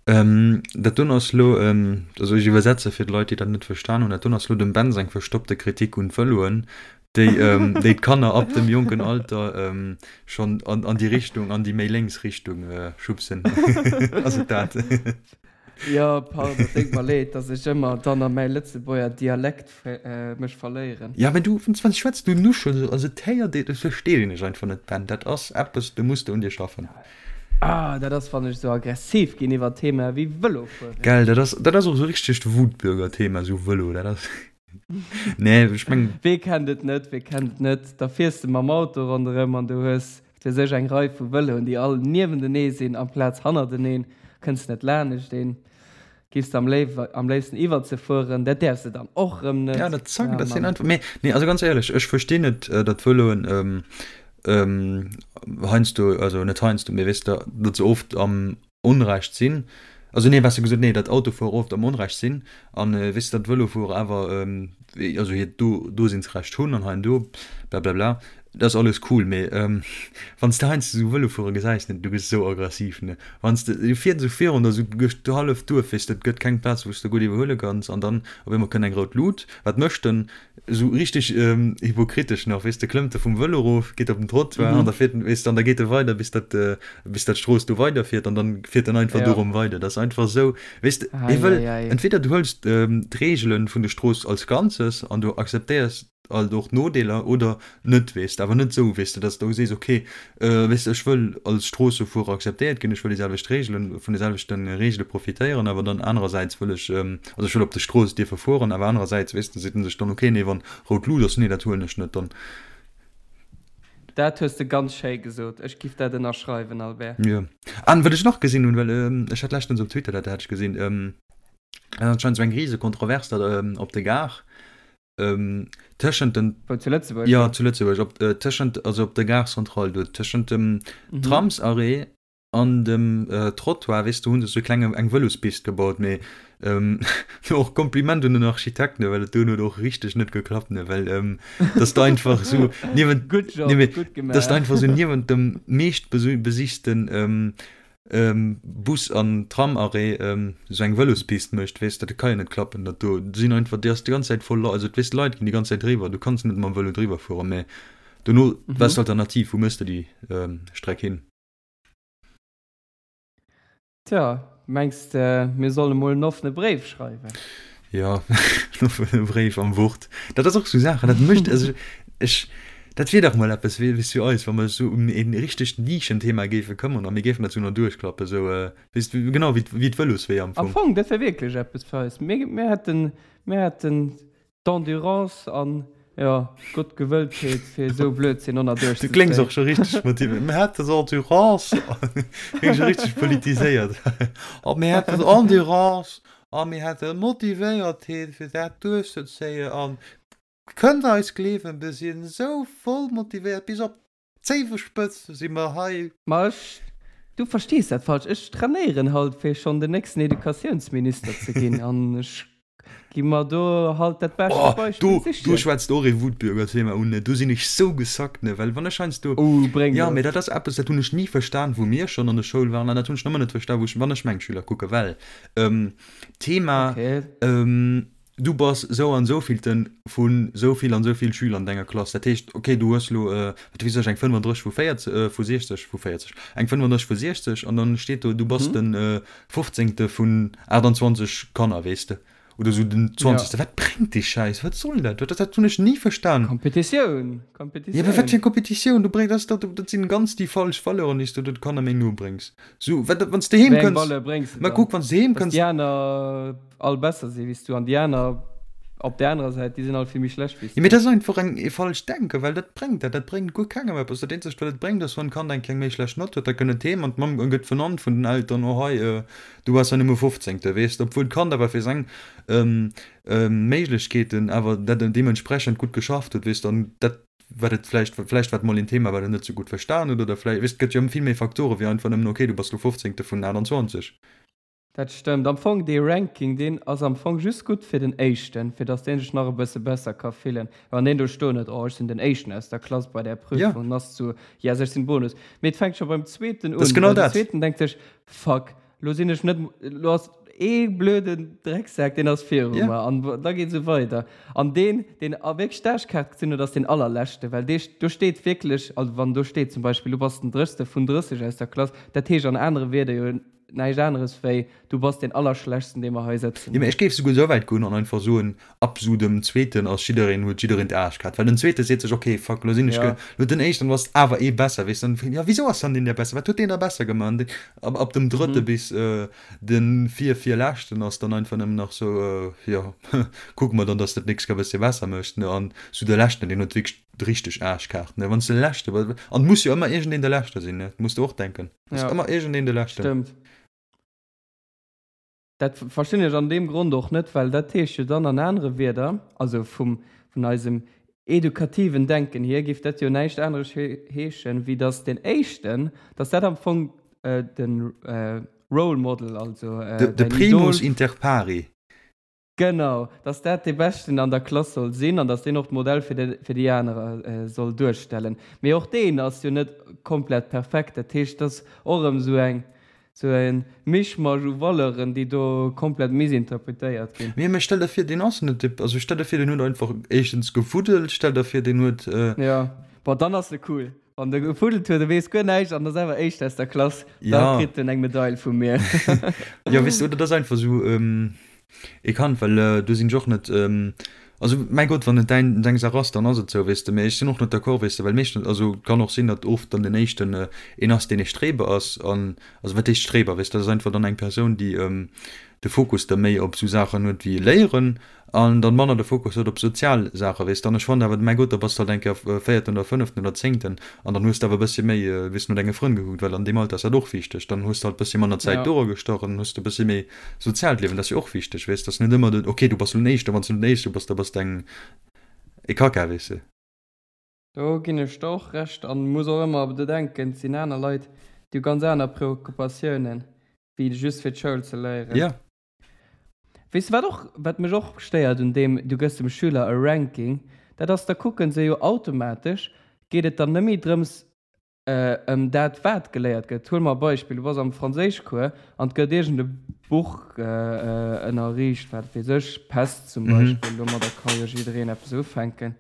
Dat doen ass lo, also ech iwwersetze fir d'Leit, déi dat net verstan hunn, dat doen ass lo dem Ben seng verstoppte Kritik un d'Vëloen, déi déi d'Kanner ab dem jonken Alter schonn an an déi Richtung, an déi méi lénks Richtung schubsen. Ass et dat? Jo, pardon, et deet mer leed, dass ech ëmmer dann a mäi Lëtzebuerger Dialekt mech verléieren. Ja, mä du, wann s schwätz, du nuschels, also et héiert een, et versteet een dech einfach net, Ben. Dat ass eppes, do muss de un dir schaffen. Ah, dat ass wann ech sou aggressiv ginn iwwer Themae wéi Vëlo fueren. Gell, dat ass, dat ass och sou richtegt Wutbürger-Thema, sou Vëlo, dat ass, nee, ech meng. Wee kennt et net, wee kennt et net, da fiers de mam Auto ronderëm an du hues, wat weess ech, eng Rei vu Vëloen, déi all niewentenee sinn amplaz hannerteneen, kënns net laanescht een. Giffs de am léifsten iwwert se fueren? Dat däerfs de dann och rëm net. Ja, dat zack, dat sinn einfach, mee, nee, also ganz éierlech, ech verstinn net, datt Vëloen heiansdo, also net heiansdo, mee weess de, datt se oft am Onrecht sinn, also nee, besser gesot, nee, datt Autofuerer oft am Onrecht sinn an, weess de, datt Vëlofuerer awer, also hiert Dosinnsrecht hunn an hei an do, blablabla. Dat ass alles cool, mee wann s de heiansdo esou Vëlofuerer gesäis, ne, du gëss esou aggressiv, ne, wann s de, du fiers esou virun der esou duerch d'halleft Duerf, weess de, et gëtt keng Plaz wou s de gutt iwwerhuele kanns an dann op eemol kënnt eng rout Lut, wat mécht en? Esou richteg hypokritesch nach, weess de, klëmmt e vum Vëlo erof, geet op den Trottoir an da fiert en, weess de, an da geet e weider bis dat, bis dat d'Strooss do weiderfiert an dann fiert en einfach dorum weider. Dat ass einfach esou, weess de, hie wëll, entweder du hëls d'Reegele vun der Strooss als Ganzes an du akzeptéiers alt och Nodeeler oder net, weess de, awer net esou, weess de, dass de sees, okay, weess de, ech wëll als Stroossefuerer akzeptéiert ginn, ech wëll déi selwecht Reegelen, vun de selwechte Reegele profitéieren, awer dann anerersäits wëll ech, also ech wëll op der Strooss dierfe fueren, awer anerersäits, weess de, seet en sech dann, okay, nee, wann rout Lut ass, nee, dat huelen ech net dann. Dat hues de ganz schéi gesot. Ech giff dat ënnerschreiwen, Albert. Jo. An wat ech nach gesinn hunn, well ech hat leschtens op Twitter dat hat ech gesinn, dat ass anscheinend esou eng rise Kontrovers da op der Gare, Tëschent den. Wou, zu Lëtzebuerg? Jo, zu Lëtzebuerg, op, tëschent, also op der Gare Centrale do, tëschent dem Tramsarrêt an dem Trottoir, weess de, hu se sou e klenge, eng Vëlospist gebaut, mee do och Kompliment un den Architekt, ne, well et do huet och richteg net geklappt, ne, well dass de einfach sou niewent, Good job, nee, mee gutt dass de gemaach. einfach sou niewent dem meescht besichten Bus an Tramarrêt esou eng Vëlospist mécht, weess de, dat ka jo net klappen, dat do sinn einfach, déi ass déi ganz Zäit voll Leit, also weess de, Leit ginn déi ganz Zäit driwwer, du kanns net mam Vëlo driwwer fueren, mä dono, wat ass d'Alternativ, wou méchs de déi Streck hin? Tja, mengs de mir solle mol en offene Bréif schreiwen? Jo, en offene Bréif am Wort. Dat ass och sou Saachen, dat mécht, also ech, dat wier dach mol eppes wéi fir eis, wa mer sou ëm e richtegt Nischenthema géife këmmern a mir géifen dat sou nach duerchklappen, sou, weess de, genau wéi wéi d'Vëlosweeër am Fong. Am Fong, dat wär wierklech eppes fir eis. Mir, mir hätten, mir hätten d'Endurance an, jo, d'Gottgewëlltheet, fir esou Blödsinn och nach Du kléngs och scho richteg motivéiert. Mir hätten d'Endurance, kléngs scho richteg politiséiert. A mir hätten d'Endurance a mir hätten d'Motivéiertheet, fir dat duerchzezéien. An kënnt eis gleewen, mir sinn esou voll motivéiert, bis op d'Zéiwespëtz si mer hei. Ma ech, du verstees dat falsch, ech trainéieren halt fir schonn den nächsten Educatiounsminister ze ginn an ech gi mer do halt dat bescht Oh, Beispill do, do sichen. schwätzt och ee Wutbürgerthema un, ne, do sinn ech sou gesackt, ne, well wann ech heiansdo, Oh, bréng jo, mee et. dat ass eppes, dat hunn ech ni verstan, wou mir schonn an der Schoul waren, an dat hunn ech nach ëmmer net verstan, wou ech, wann ech meng Schüler kucken, well, Thema, Okay. du bass sou an sou villten vu sou vill an sou vill Schüler an denger Klass, dat heescht, okay, du hues elo, wat weess ech, eng 35 vu 40, vu 60, vu 40, eng 35 vu 60 an dann steet do, du bass de fofzéngte vun 28 Kanner, weess de, oder sou den zwanzegste. Wat bréngt dee Schäiss? Wat soll dat? Dat, dat hunn ech ni verstan. Kompetitioun, Jo, mä wat fir eng Kompetitioun? Du bréngs, dat ass dach, dat sinn ganz déi falsch Valeuren, déi s du de Kanner méi no bréngs. Sou, wat, wann s de heem Wéi eng kënns, Valeur bréngs de ma dann? kuck, wann s de heem Dass kënns. déi aner all besser si wéi s du an déi aner. Op där anerer Säit, déi sinn all vill méi schlecht wéi s Jo, mee du. dat ass einfach eng e falscht Denken, well dat bréngt dat, dat bréngt guer kengem eppes. Dat eenzegt, wat et bréngt, ass, wann d'Kand eng kleng méi schlecht Nott huet, da kënnt et heem an d'Mamm gëtt vernannt vun den Eltern, oh hei, du waars ja nëmme Fofzéngte, weess de, obwuel d'Kand awer fir seng Méiglechkeeten awer dat deementsprechend gutt geschafft huet, weess de, an dat, wat et vläicht, vläicht war et mol een Thema, wat et net sou gutt verstan huet, oder vläicht, weess de, et gëtt jo vill méi Facteure wéi einfach nëmmen, okay, du bass lo Fofzéngte vun 28. Dat stëmmt. Am Fong, dee Ranking, deen ass am Fong just gutt fir den Éischten, fir dass deen sech nach e bësse besser ka fillen. Wann deen do stoen huet, oh, ech sinn den Éischten aus der Klass bei där Ja. Prüfung, dann ass et sou, yes, ech sinn Bonus. Mee et fänkt scho beim Zweeten Dat ass un, genau well den dat. Zweeten denkt sech, fuck, lo sinn ech net, lo ass ee blöden Drecksak, deen ass viru Ja. mer. An da geet esou weider. An deen, deen a wierklech d'Aarschkaart gezunn huet, ass deen Allerleschten, well dee, do steet wierklech, also wann do steet zum Beispill, du bass den Drëchste vun 30 aus der Klass, dat heescht an anere Wierder jo, Näischt aneres wéi, du bass deen Allerschlechtsten, dee mer hei sëtzen Jo, mä hunn. ech géif souguer esou wäit goen an einfach soen, ab sou dem Zweeten ass jiddereen, huet jiddereen d'Aarschkaart. Well den Zweete seet sech, ok, fuck, lo sinn ech ge, Ja. lo den Éischten ass awer ee besser, weess de. An jo, wisou ass dann deen der besser, wat huet deen da besser gemaach? An deen, ab, ab dem Drëtte Mhm. bis de vir, virleschten ass dann einfach nëmmen nach sou, jo, kucke mer dann, dass de d'nächst Kéier e bëssche besser méchs, ne. An sou de Leschten, deen huet wierklech d'richteg Aarschkaart, ne. Wann s de Leschte bass, an et muss jo ëmmer iergendeen de Leschte sinn, ne, muss de och denken. Ass Ja. ëmmer iergendeen de Leschten. Stëmmt. Dat verstinn ech an deem Grond och net, well dat heescht jo dann an anere Wierder, also vum, vun eisem edukativen Denken hier, géif dat jo näischt aneres heeschen, wéi datt deen Éischten, datt dat am Fong de Role Model, also De, de däin Primus Idol, inter pari. Genau, dass dat dee Beschten an der Klass soll sinn an dass deen och d'Modell fir de, fir déi anerer soll duerstellen. Mee och deen ass jo net komplett perfekt. Dat heescht, et ass och erëm esou eng, esou e Mischmasch u Valeuren, déi do komplett missinterpretéiert ginn. Mee, mee stell der vir, deen ass net dee, also stell der vir, deen huet einfach éischtens gefuddelt, stell der vir, deen huet. Jo, bon, dann ass e cool. Wann de gefuddelt huet, e weess guer näischt an ass awer Éischt aus der Klass, da Ja. kritt en eng Medail vu mir. Jo, weess de, oder dat ass einfach esou ee Kand, well do sinn ech och net, also mäi Gott, wann et däin, deng Saach ass, dann ass et esou, weess de, mee ech sinn och net d'accord, weess de, well meeschtens, also et kann och sinn, datt oft dann den Éischten een ass, deen ee Streber ass an, also wat heescht Streber, weess de, dat ass einfach dann eng Persoun, déi de Fokus da méi op esou Saachen huet wéi Léieren An dann manner de Fokus huet op sozial Saachen, weess de. An ech fannen awer, mäi Gott, da bass de halt eng Kéier Véierten oder Fënneften oder Zéngten an dann hues de awer e bëssche méi, weess de, no denge Frënn gekuckt, well an deem Alter ass dat och wichteg. Dann hues de halt e bëssche manner Zäit Ja. dora gestach an dann hues de e bëssche méi soziaalt Liewen. Dat ass jo och wichteg, weess de. Ass net ëmmer den, okay, du bass elo den Éischten, wann s du net den Éischte bass, da bass de eng e Kacka, weess de. Do ginn ech der och Recht an muss och ëmmer bedenken, et sinn aner Leit, déi hu ganz aner Preoccupatiounen, wéi just fir d'Schoul ze léieren. Ja. Weess de wat och, wat mech och stéiert un deem, du gëss dem Schüler e Ranking, dat ass, da kucken se jo automatesch, geet et dann net méi drëms ëm dat wat geléiert gëtt. Huele mer e Beispill, du bass am Franséischcours an et gëtt iergend e Buch ënnerriicht, wat weess ech, Pest zum Beispill, domadder ka jo jiddereen eppes ufänken.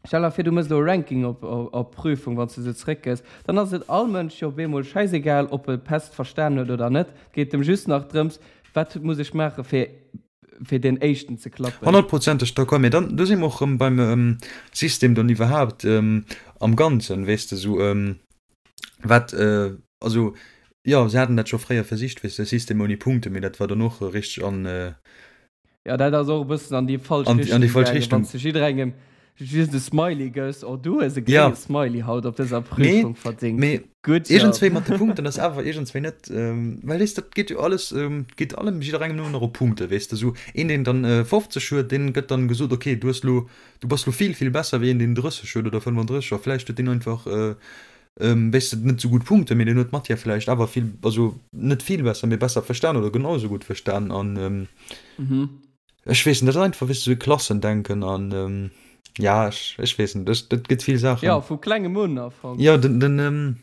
Stell der vir, du mëss elo e Ranking op op Prüfung, wann s du se zréckgëss, dann ass et all Mënsch jo op eemol schäisegal, ob e Pest verstan huet oder net. Et geet em just nach drëms, wat muss ech maache fir fir deen Éischten ze klappen. Honnertprozenteg d'accord, mee dann, do si mer och erëm beim System dann iwwerhaapt am Ganzen, weess de, esou wat, also jo, se haten dat scho fréier versicht, weess de, System ouni Punkten, mee dat war dann och richteg an. Jo, dat ass och e bëssen an déi falsch An déi Richtung falsch gaangen, Richtung. wann s de jidderengem just e Smiley gëss, oh du hues e Ja. grénge Smiley haut op dëser Nee, Prüfung verdéngt, mee good job. iergendswéi mat de Punkten ass awer iergendswéi net, well weess de, dat geet jo alles, geet allem jidderengem nëmmen nach op Punkte, weess de, esou een deen dann 50 huet, deen gëtt dann gesot, okay, du hues lo, du bass lo vill, vill besser wéi een deen 30 huet oder 35 a vläicht huet deen einfach, weess de, net esou gutt Punkten, mee deen huet d'Matière vläicht awer vill, also net vill besser, mee besser verstan oder genau esou gutt verstan an ech weess net, dat ass einfach, weess de, esou e Klassendenken an ja, ech, ech weess net, ech, et gëtt vill Saachen. Jo, vu klengem un am Fong. Jo, den, den.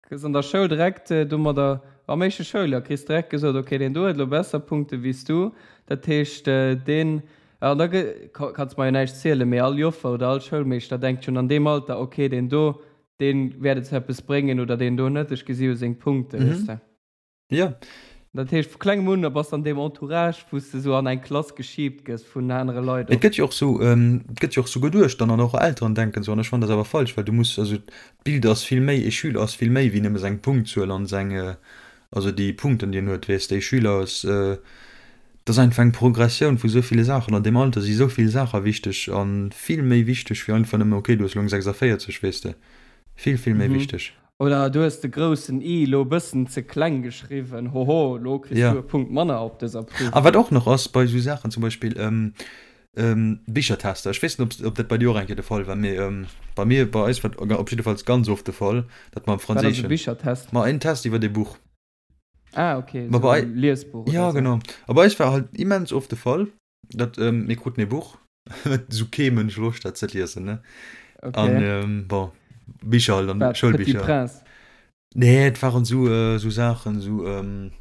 Kriss an der Schoul direkt domadder, am éischte Schouljoer kriss direkt gesot, okay, deen do huet elo besser Punkte wéi s du, dat heescht deen, an da kanns mer jo näischt zielen, mee all Joffer oder all Schoulmeeschter denkt schonn an deem Alter, okay, deen do, deen wäert et zu eppes bréngen oder deen do net, ech gesi jo seng Punkte, weess de. Jo. Dat heescht, vu klengem un bass de an deem Entourage, wou s de sou an eng Klass geschiibt gëss vun anere Leit Et och. gëtt jo och sou, et gëtt jo och sou geduecht dann an och Elteren denken sou an ech fannen dat awer falsch, well du muss, also d'Bild ass vill méi, ee Schüler ass vill méi wéi nëmme seng Punktzuel an seng, also déi Punkten déi en huet, weess de, ee Schüler ass. Et ass einfach eng Progressioun vu sou ville Saachen. An deem Alter si sou vill Saache wichteg a vill méi wichteg wéi einfach nëmme, okay, du hues elo eng 46, weess de. Vill, vill méi wichteg. Oder du hues de groussen I elo e bëssen ze kleng geschriwwen, hoho, elo kriss du e Punkt manner op dëser Prüfung. A wat och nach ass bei esou Saachen, zum Beispill Bichertester, ech weess net, ob dat bei dir och eng Kéier de Fall war, mee bei mir, bei eis war et op jiddefalls ganz oft de Fall, datt mer am Franséischen. Wat ass e Bichertest? Ma en Test iwwer e Buch. Ah, okay, Ma bei, Liesbuch. Ja, so. genau. A bei eis war halt immens oft de Fall, dat ähm, mir kruten e Buch, sou kee Mënsch Loscht hat ze liesen, ne? Okay. An ähm, bon, Bicher halt, an Schoulbicher. Petit Prince. Nee, et waren sou, äh, sou Saachen, sou ähm,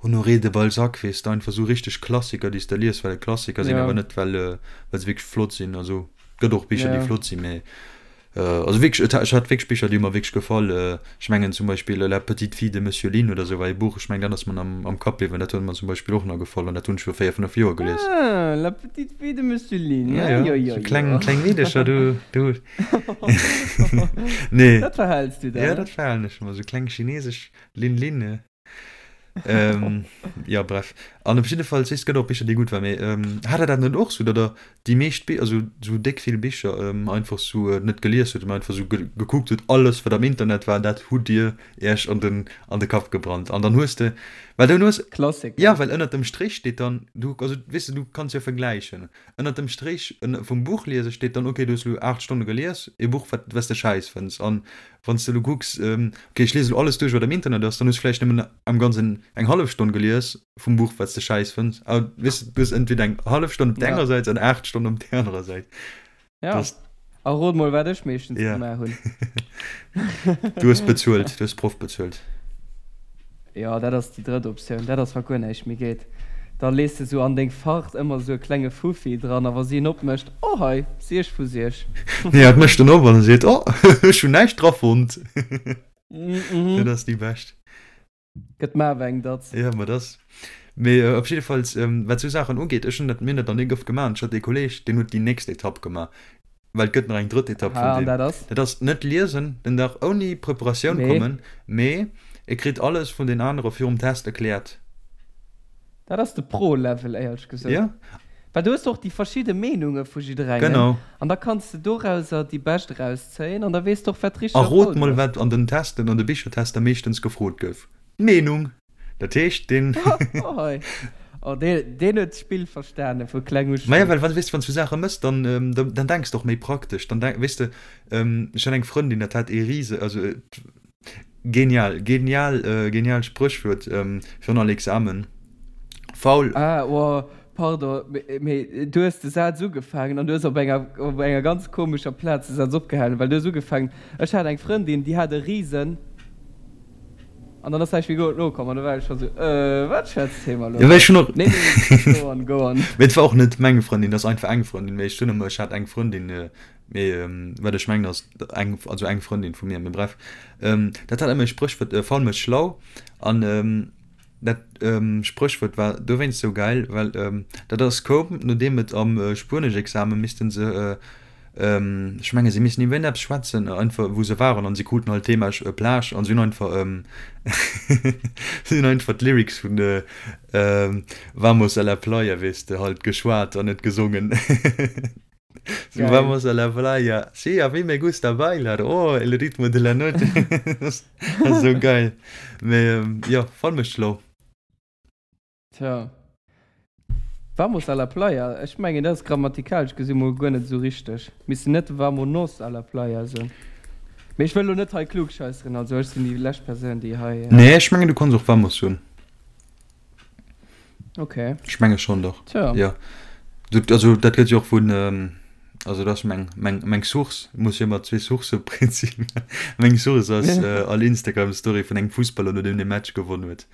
Honoré de Balzac, weess de, einfach sou richteg Klassiker, déi s de lies, well et Klassiker sinn, ja. awer net, well, äh, well se wierklech flott sinn. Also, gëtt och Bicher, ja. déi flott sinn, mee Also wierklech, ech hat wierklech Bicher, déi hu mer wierklech gefall. Ech mengen zum Beispill La petite fille de Monsieur Lin oder sou war ee Buch, ech mengen dat ass mer am am Kapp bliwwen, dat huet mer zum Beispill och nach gefall an dat hunn ech viru 4, 5 Joer gelies. Ah, La petite fille de Monsieur Lin, ja, jo, jo, jo. Kleng, kleng Meedecher, du, du. Nee. Dat verhäls du der, Ja, dat verhalen ech mer, sou kleng chinesesch Lin Lin. Ähm, ja, bref. An op jidde Fall, et gëtt och Bicher, déi gutt waren, mee ähm, hat der dat net och sou, datt der déi meescht Bi-, also sou déck vill Bicher ähm, einfach sou äh, net gelies hutt, mee einfach sou ge gekuckt hutt, alles wat am Internet war, dat hutt Dir Iech an den, an de Kapp gebrannt. An dann hues de, well dann hues, Klassiker. ja, well ënnert dem Strich steet dann, du, also weess de, du kanns jo vergläichen, ënnert dem Strich vum Buch liese steet dann, okay, du hues elo 8 Stonne gelies, e Buch, wat, wat s de schäiss fënns. An Wann s de elo kucks, ok, ech liese elo alles duerch, wat am Internet ass, dann hues de vläicht nëmmen am Ganzen eng hallef Stonn gelies vum Buch, wat s de schäiss fënns. A weess de, du hues entweder eng hallef Stonn op där enger Säit an 8 Stonnen op där anerer Säit. Ja. A rot mol, wat ech meeschtens gemaach hunn. Du hues bezuelt, du hues d'Proff bezuelt. Jo, dat ass déi drëtt Optioun. Dat ass, wa guer näischt méi geet. Da lees de sou an deng Fart ëmmer sou e klenge Fuffi dran a wa si en opmécht, Oh hei, Siech vu Siech. Nee, hat mécht en op an seet, Oh, ech hunn näischt dra fonnt. Dat ass déi bescht. Gëtt mer awer eng Datz. Jo, ma dass. Mee op jiddefalls, wat sou Saachen ugeet, ech hunn dat, mir hunn dat nach ni oft gemaach. Ech hat ee Kolleeg, deen huet déi nächst Etapp gemaach. Well et gëtt nach eng drëtt Etapp vun deem. Dat ass? Dat ass net liesen, den Dag ouni Preparatioun kommen, mee e kritt alles vun den anere virum Test erkläert. Dat ass de Pro-Level, éierlech gesot. Ja. Well du hues och déi verschidde Meenunge vu jidderengem. Genau. An da kanns de dorauser déi bescht erauszéien an da weess de och, wat richteg a falsch ass. A rot mol, wat an den Testen, an de Bichertester meeschtens gefrot gouf. D'Meenung! Dat heescht, deen. Oh hei. Oh, deen, deen huet d'Spill verstane vu kleng u schonn. Maja, well wann, weess de, wann s du Saache mëss, dann, dann denks de och méi praktesch. Dann denk, weess de, ech hat eng Frëndin, dat hat ee rise, also genial, genial, genial Spréchwuert virun all Examen, Faul. Ah, oh, pardon, mee du hues de Saz ugefaangen an du hues op enger, op enger ganz komescher Plaz de Saz opgehalen, well du hues ugefaangen, Ech hat eng Frëndin, déi hat e risen. An dann ass näischt méi go nokomm an du war ech schon sou, äh, wat schwätzt hee mer lo Ja, hei? ech hunn och. Nee, nee, go on, go on. Mee et war och net meng Frëndin, dat ass einfach eng Frëndin. Mee ech soen ëmmer, ech hat eng Frëndin, mee wat ech mengen ass eng, also eng Frëndin vu mir. Mee bref, dat hat ëmmer e Spréchwuert, Faul mécht schlau. An dat Spréchwuert war dowéinst sou gäil, well dat ass koum, nodeem et am Spueneschexame misste se Ech menge si missen iwwer eppes schwätzen, einfach wou se waren an si kruten halt Thema Plage an si hunn einfach si hunn einfach d'Lyrics vun Vamos a la playa, weess de, halt geschwat an net gesongen. Sou Vamos a la playa, sí, a mí me gusta bailar, oh, el ritmo de la noche. Dat ass esou geil. Mee jo, voll mécht schlau. Tja. Vamos a la playa, ech mengen dat ass grammatikalesch gesi mol guer net esou richteg. Misst een net vamonos a la playa soen? Mee ech wëll lo net hei klugscheisseren, also ech sinn déi lescht Persoun déi hei. Nee, ech mengen du kanns och vamos soen. Ok. Ech menge schonn, dach. Tja. Jo. Du, also dat gëtt jo och vun, also dat ass meng, meng, meng Source, ech muss jo ëmmer zwee Sourcë prinzip. Meng Source ass all Instagram-Story vun engem Fussballer nodeem dee Match gewonn huet.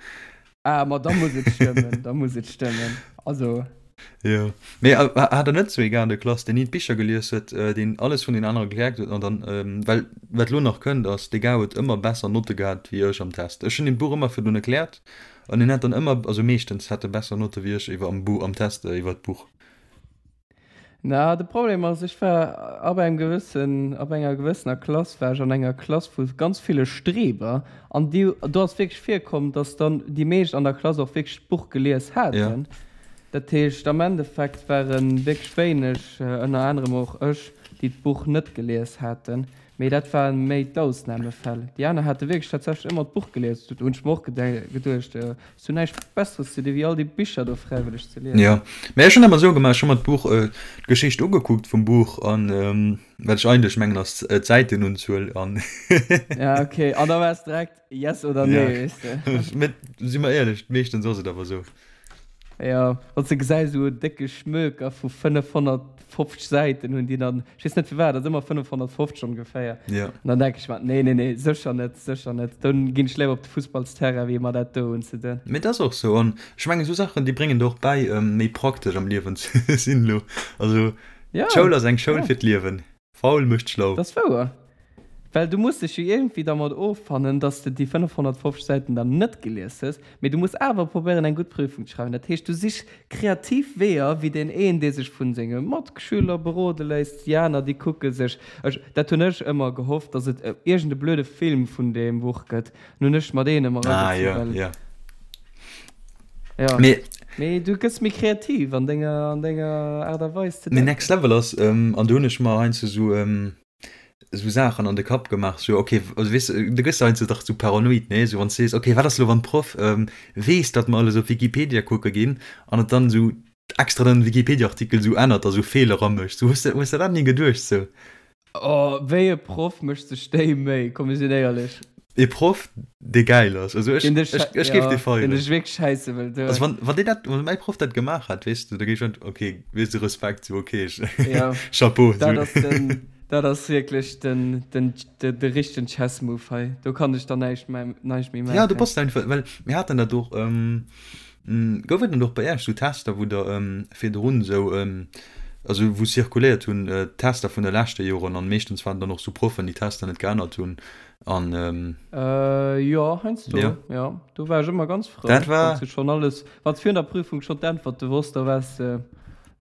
Ah, ma da muss et stëmmen, da muss et stëmmen. Also. Jo. Mee hat der net sou ee gar an der Klass, deen ni d'Bicher gelies huet, deen alles vun den anere gelernt huet an dann, well wat elo nach kënnt ass, dee Gar huet ëmmer besser Notte gehat wéi ech am Test. Ech hunn him d'Buch ëmmer virdrun erkläert an hien hat dann ëmmer, also meeschtens hat e besser Notte wéi ech iwwer am Buch, am Test iwwer d'Buch. Na, de Problem ass, ech war ab engem gewëssen, ab enger gewëssener Klass war ech an enger Klass vu ganz ville Streber an déi, do ass wierklech virkomm, dass dann déi meescht an der Klass och wierklech d'Buch gelies haten. Ja. Dat heescht, am Endeffekt ware wierklech wéineg, ënner anerem och ech, déi d'Buch net gelies haten. Mee dat ware méi d'Ausnamefäll. Déi aner hate wierklech tatsächlech ëmmer d'Buch gelies. Do hunn ech mer och geduecht, Hues du näischt Besseres ze di wéi all déi Bicher do fräiwëlleg ze liesen? Jo, mee ech hunn ëmmer esou gemaach, ech hu mer d'Buch, d'Geschicht ugekuckt vum Buch an wat ech eigentlech mengen ass d'Säitenunzuel an. Ja, okay, an da waars direkt yes oder nee, weess de. Mee si mer éierlech, meeschtens ass et awer esou. Jo, wann s de gesäis, esou en décke Schmöker vu 550 Säiten hunn déi dann, ech weess net firwat, ass ëmmer 550 ongeféier. Jo. An dann denke ech mer, nee, nee, nee, sécher net, sécher net, dann ginn ech léiwer op de Fussballsterrain, wéi mer dat do unzeduen. Mee et ass och sou. An ech mengen, esou Saachen, déi bréngen der och bäi, méi praktesch am Liewen ze sinn elo. Also, d'Schoul ass eng Schoul fir d'Liewen. Faul mécht schlau. Dat ass wouer. Well du muss dech jo iergendwéi dermat offannen, dass de déi 550 Säiten dann net gelies hues, mee du muss awer probéieren eng gutt Prüfung ze schreiwen. Dat heescht, du sich kreativ Weeër, wéi deen een, dee sech vu senge Matschüler berode léisst, déi aner, déi kucke sech, ech, dat hunn ech ëmmer gehofft, dass et iergend e blöde Film vun deem Buch gëtt, Nun hunn ech mer deen ëmmer Ah, eragezu, jo, well. jo. Jo. Mee. Mee du gëss méi kreativ an denger, an denger Aart a Weis ze Mee denken. Next Level ass, an do hunn ech mer heiansdo esou, esou Saachen an de Kapp gemaach, sou ok, also weess de, du gëss heiansdo dach sou paranoid, nee, sou wann s de sees, ok, wat ass elo wann d'Proff weess, datt mer alles op Wikipedia kucke ginn an et dann esou extra den Wikipedia-Artikel sou ännert a sou Feeler amécht, sou hues de, hues de dat ni geduecht sou? Oh, wéi e Proff mécht sech déi Méi? Komm mir sinn éierlech. E Proff dee gäil ass, also ech, ech, ech géif dee feieren. Deen dech wierklech schäisse wëll doen. Also wann, wann deen dat, wann mäi Proff dat gemaach hätt, weess de, da géif ech, ok, weess de, Respekt, sou ok, ech, Chapeau. Dat ass den, dat ass wierklech den, den, de richtegen Chess Move hei. Do kann ech dann näischt méi, näischt méi maachen. Ja, du bass einfach, well mir haten dat och, Gouf et net och bei Iech sou Tester, wou der virdrun sou, also wou zirkuléiert hunn d'Tester vun de leschte Joren an meeschtens waren dann och sou Proffen, déi d'Tester net geännert hunn an. Jo, heiansdo, jo. Do war ech ëmmer ganz frou, Dat war. wann s du schonn alles, wann s virun der Prüfung schonn d'Äntwerte wosst, da waars de,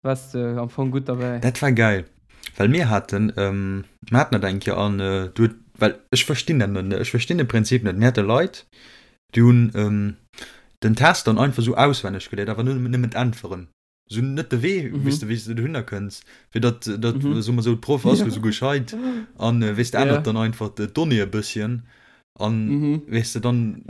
waars de am Fong gutt derbäi. Dat war gäil, well mir haten, mir haten dat eng Kéier an du huet, well ech verstinn dat net, ech verstinn de Prinzip net, mir hate Leit, Déi hunn den Test dann einfach sou auswenneg geléiert, awer nëmmen d'Äntweren. Sou net de Wee, weess de, wéi s de dohinner kënns, fir datt, datt, soe mer sou, d'Proff ass lo sou gescheit an, weess de, ännert dann einfach d'Donnée e bësschen an, weess de, dann,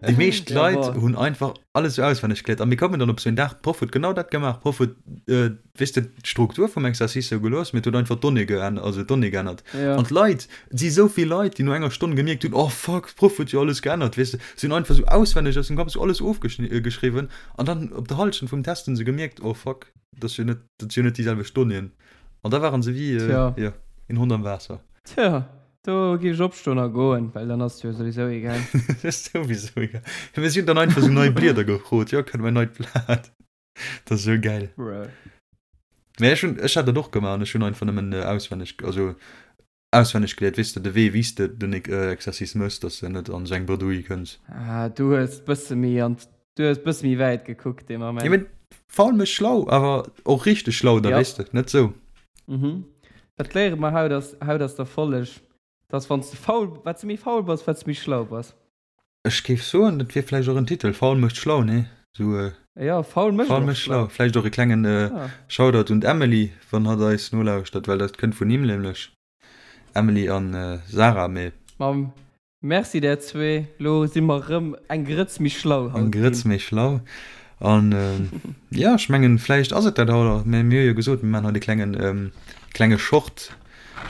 déi meescht Leit hunn einfach alles sou auswenneg geléiert a mir koumen dann op sou en Dag, d'Proff huet genau dat gemaach, d'Proff huet, weess de, d'Struktur vum Exercice sou gelooss, mee et huet einfach d'Donnée geännert, also d'Donnée geännert. Ja. An d'Leit, et si sou vill Leit, déi no enger Stonn gemierkt hunn, oh fuck, d'Proff huet jo alles geännert, weess de, si hunn einfach sou auswenneg aus dem Kapp sou alles ofgeschriwwen an dann op der Hallschent vum Test hunn se gemierkt, oh fuck, dat ass jo net, dat si jo net déi selwecht Donnéeën. An da waren se wéi, Tja. jo, een Hond am Waasser. Tja, do géif ech opstoen a goen, well dann ass et jo souwisou egal. Dat ass souwisou egal. Mee si hunn dann einfach sou nei Blieder gefrot, jo, kënne mer en neit Blat? Dat ass sou geil. Bruh. Mee ech hunn, ech hat dat och gemaach an ech hunn einfach nëmmen auswenneg, also auswenneg geléiert, weess de, de Wee wéi s de den Exercice mëss, dass de net an esou eng Bredouille kënns. Ah, du hues bësse méi an, du hues bësse méi wäit gekuckt dee Moment. Jo, mee faul mécht schlau, awer och richteg schlau da, weess de, net sou. Mhm. Dat léiere mer haut ass, haut ass der Folleg, dass wann s de faul, wat s de méi faul bass, wat s de méi schlau bass. Ech géif soen, dat wier vläicht och en Titel, Faul mécht schlau, nee? Sou, Jo, faul mécht Faul mécht schlau. Vläicht och e klengen Shoutout un d'Emily, wann hatt eis nolauschtert, well dat kënnt vun him nämlech. Emily an Sarah, mee. Ma merci där zwee, lo si mer rëm eng Grëtz méi schlau haut ginn. Eng Grëtz méi schlau. An jo, ech mengen, vläicht ass et dat haut och. Mir hu jo gesot, mir maachen haut e klengen, klenge Short.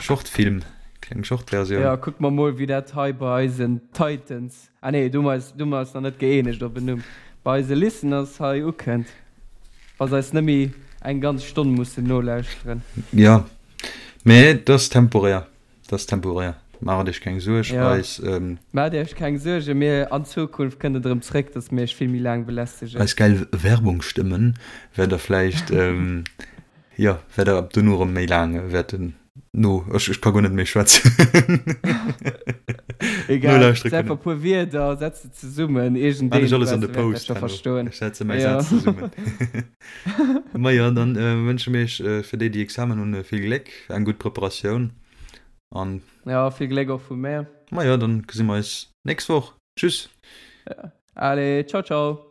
Shortfilm, kleng Shortversioun. Jo, kucke mer mol wéi dat hei bei eisen Titans, ah nee, do hu mer eis, do hu mer eis nach net gëeenegt op en Numm, bei eise Listeners hei ukënnt, wa se eis net méi eng ganz Stonn mussen nolauschteren. Jo, mee et ass temporär, et ass temporär, maacht iech keng Suerg, eis. Maacht iech keng Suergen, mir an Zukunft kënnt et erëm zréck, dass mir iech vill méi laang belästegen. Eis gäil Werbungsstëmmen wäert der vläicht Jo, wäert der ab dono erëm méi laang wäerten no, ech ech ka guer net méi schwätzen. Egal, Nolauschtere setz einfach kënnen. e puer Wierder, setz se zesummen, Maan iergendeen ech alles an de wäert dat Post scho herno. verstoen. Ech setze mäi Jo. Saz zesummen. Majo, dann wënsche mir iech fir déi, déi Examen hunn, vill Gléck, eng gutt Preparatioun an. Jo, vill Gléck och vu mär. Majo, dann gesi mer eis nächst Woch. Tschüss! Allez, ciao ciao!